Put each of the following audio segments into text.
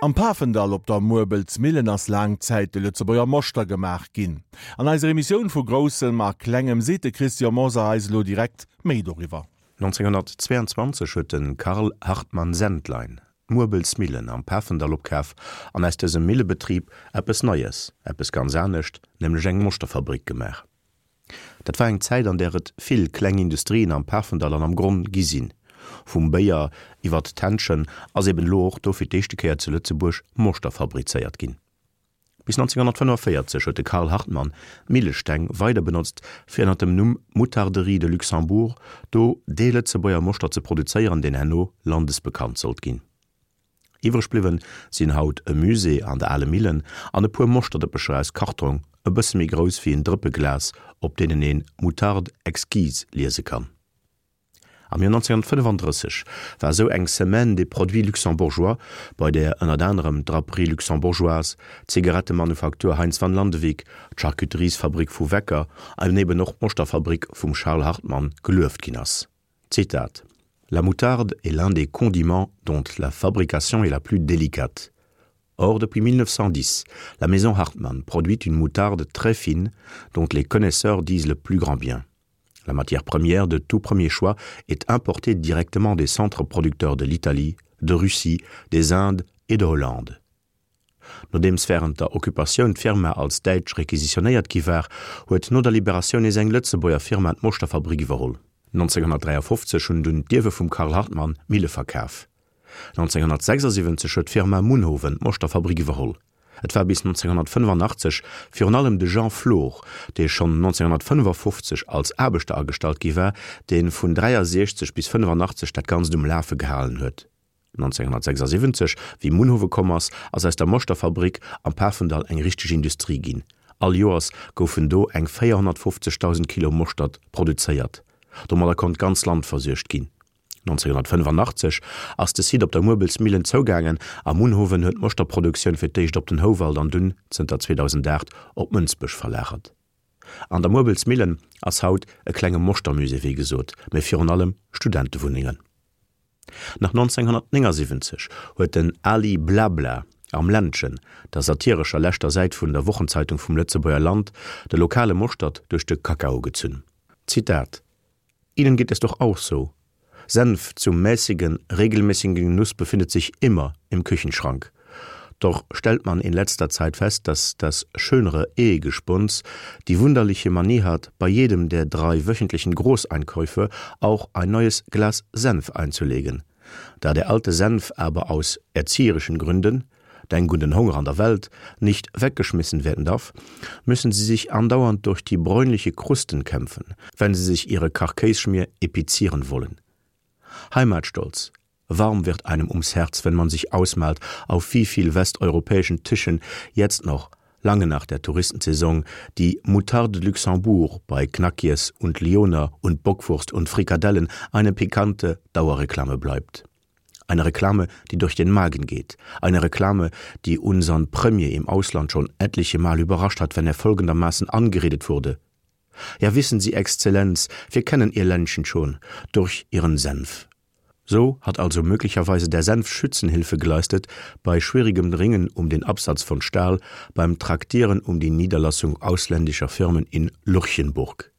Am Pafendall op der Muerbelsmillen ass laang Zäit de Lëtzebuerger Moschter gemaach ginn. An eiser Emissioun vu Groussem a Klengem seet de Christian Mosar eis elo direkt méi doriwwer. 1922 huet de Karl Hartmann-Sendlein d'Muerbelsmillen am Pafendall opkaf an aus dësem Millebetrib eppes Neies, eppes ganz anescht, nämlech eng Moschterfabrik gemaach. Dat war eng Zäit, an där et vill kleng Industrien am Pafendall an am Gronn gi sinn. Vum Béier iwwert d'Händschen ass eben elo och do fir d'éischte Kéier zu Lëtzebuerg Moschter fabrizéiert ginn. Bis 1945 huet de Karl Hartmann d'Millesteng weider benotzt, fir ënner dem Numm Moutarderie de Luxembourg do dee Lëtzebuerger Moschter ze produzéieren, deen herno landesbekannt sollt ginn. Iwwreg bliwwen sinn haut e Musée an der ale Millen an e puer Moschterdëppecher aus Kartrong, e bësse méi grouss wéi en Drëppe Glas, op deenen een Moutarde exquise liese kann. Am Joer 1935 war esou eng Semaine des produits luxembourgeois, bei där ënnert anerem d'Draperie luxembourgeoise, d'Zigarettemanufaktur Heintz van Landewyck, d'Charcuteriesfabrik vu Wecker an eben och d'Moschterfabrik vum Charles Hartmann gelueft ginn ass. Zitat: La moutarde est l'un des condiments dont la fabrication est la plus délicate. Or, depuis 1910, la maison Hartmann produit une moutarde très fine dont les connaisseurs disent le plus grand bien. La matière première de tout premier choix est importée directement des centres producteurs de l'Italie, de Russie, des Indes et de Hollande. Nodeems wärend der Occupatioun d'Firma als däitsch requisitionéiert gi war, huet no der Liberatioun nees eng Lëtzebuerger Firma d'Moschterfabrik iwwerholl. 1953 hunn dunn d'Ierwe vum Karl Hartmann d'Mille verkaf. 1976 huet d'Firma Munhowen d'Moschterfabrik iwwerholl. Et war bis 1985 virun allem de Jean Flor, dee schonn 1955 als Aarbechter agestallt gi war, dee vun 63 bis 85 dat Ganzt um Lafe gehalen huet. 1976, wéi Munhowe komm ass, ass aus der Moschterfabrik am Pafendall eng richteg Industrie ginn. All Joers goufen do eng 450.000 Kilo Moschtert produzéiert. Domadder konnt d'ganz Land versuergt ginn. 1985 ass de Site op der Muerbelsmillen zougaangen a Munhowen huet d'Moschterproduktioun fir d'éischt op den Houwald an dunn, zënter 2008, op Mënsbech verlagert. An der Muerbelsmillen ass haut e klenge Moschtermusée, wéi gesot, mee virun allem Studentewunnengen. Nach 1979 huet den Ali Blabla am Ländchen, der satirescher leschter Säit vun der Wochenzeitung vum Lëtzebuerger Land, de lokale Moschtert duerch de Kakao gezunn. Zitat, Ihnen geht es doch auch so. Senf zum mäßigen, regelmäßigen Genuss befindet sich immer im Küchenschrank. Doch stellt man in letzter Zeit fest, dass das schönere Ehegespuns die wunderliche Manie hat, bei jedem der drei wöchentlichen Großeinkäufe auch ein neues Glas Senf einzulegen. Da der alte Senf aber aus erzieherischen Gründen, Denk un den Honger an der Welt, nicht weggeschmissen werden darf, müssen sie sich andauernd durch die bräunliche Krusten kämpfen, wenn sie sich ihre Karkässchmier epizieren wollen. Heimatstolz, Warm wird einem ums Herz, wenn man sich ausmalt, auf wie viel westeuropäischen Tischen jetzt noch, lange nach der Touristensaison, die Moutarde de Luxembourg bei Knackies und Lyoner und Bockwurst und Frikadellen eine pikante Dauerreklame bleibt. Eine Reklame, die durch den Magen geht. Eine Reklame, die unseren Premier im Ausland schon etliche Mal überrascht hat, wenn er folgendermaßen angeredet wurde. Ja wissen Sie, Exzellenz, wir kennen Ihr Ländchen schon durch Ihren Senf. So hat also möglicherweise der Senf Schützenhilfe geleistet bei schwierigem Ringen um den Absatz von Stahl, beim Traktieren um die Niederlassung ausländischer Firmen in Lurchenburg.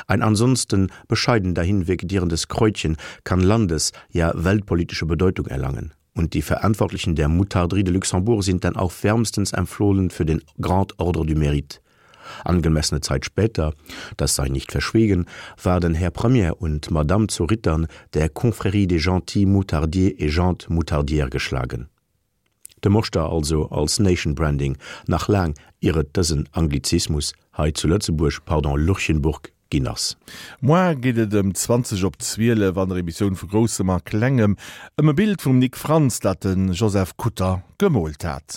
Ein ansonsten bescheiden dahinvegetierendes Kräutchen kann landes-, ja weltpolitische Bedeutung erlangen. Und die Verantwortlichen der Moutarderie de Luxembourg sind dann auch wärmstens empfohlen für den Grand Ordre du Mérite. Angemessene Zeit später, das sei nicht verschwiegen, waren Herr Premier und Madame zu Rittern der Confrérie des gentils Moutardiers et gentes Moutardières geschlagen. De Moschter also als Nation Branding, nach laang ier et dësen Anglizismus hei zu Lëtzebuerg, pardon, Lurchenburg, ginn ass. Moar geet et ëm 20 op 12 an der Emissioun vu Groussem a Klengem ëm e Bild vum Nic Frantz, dat de Joseph Kutter gemoolt hat.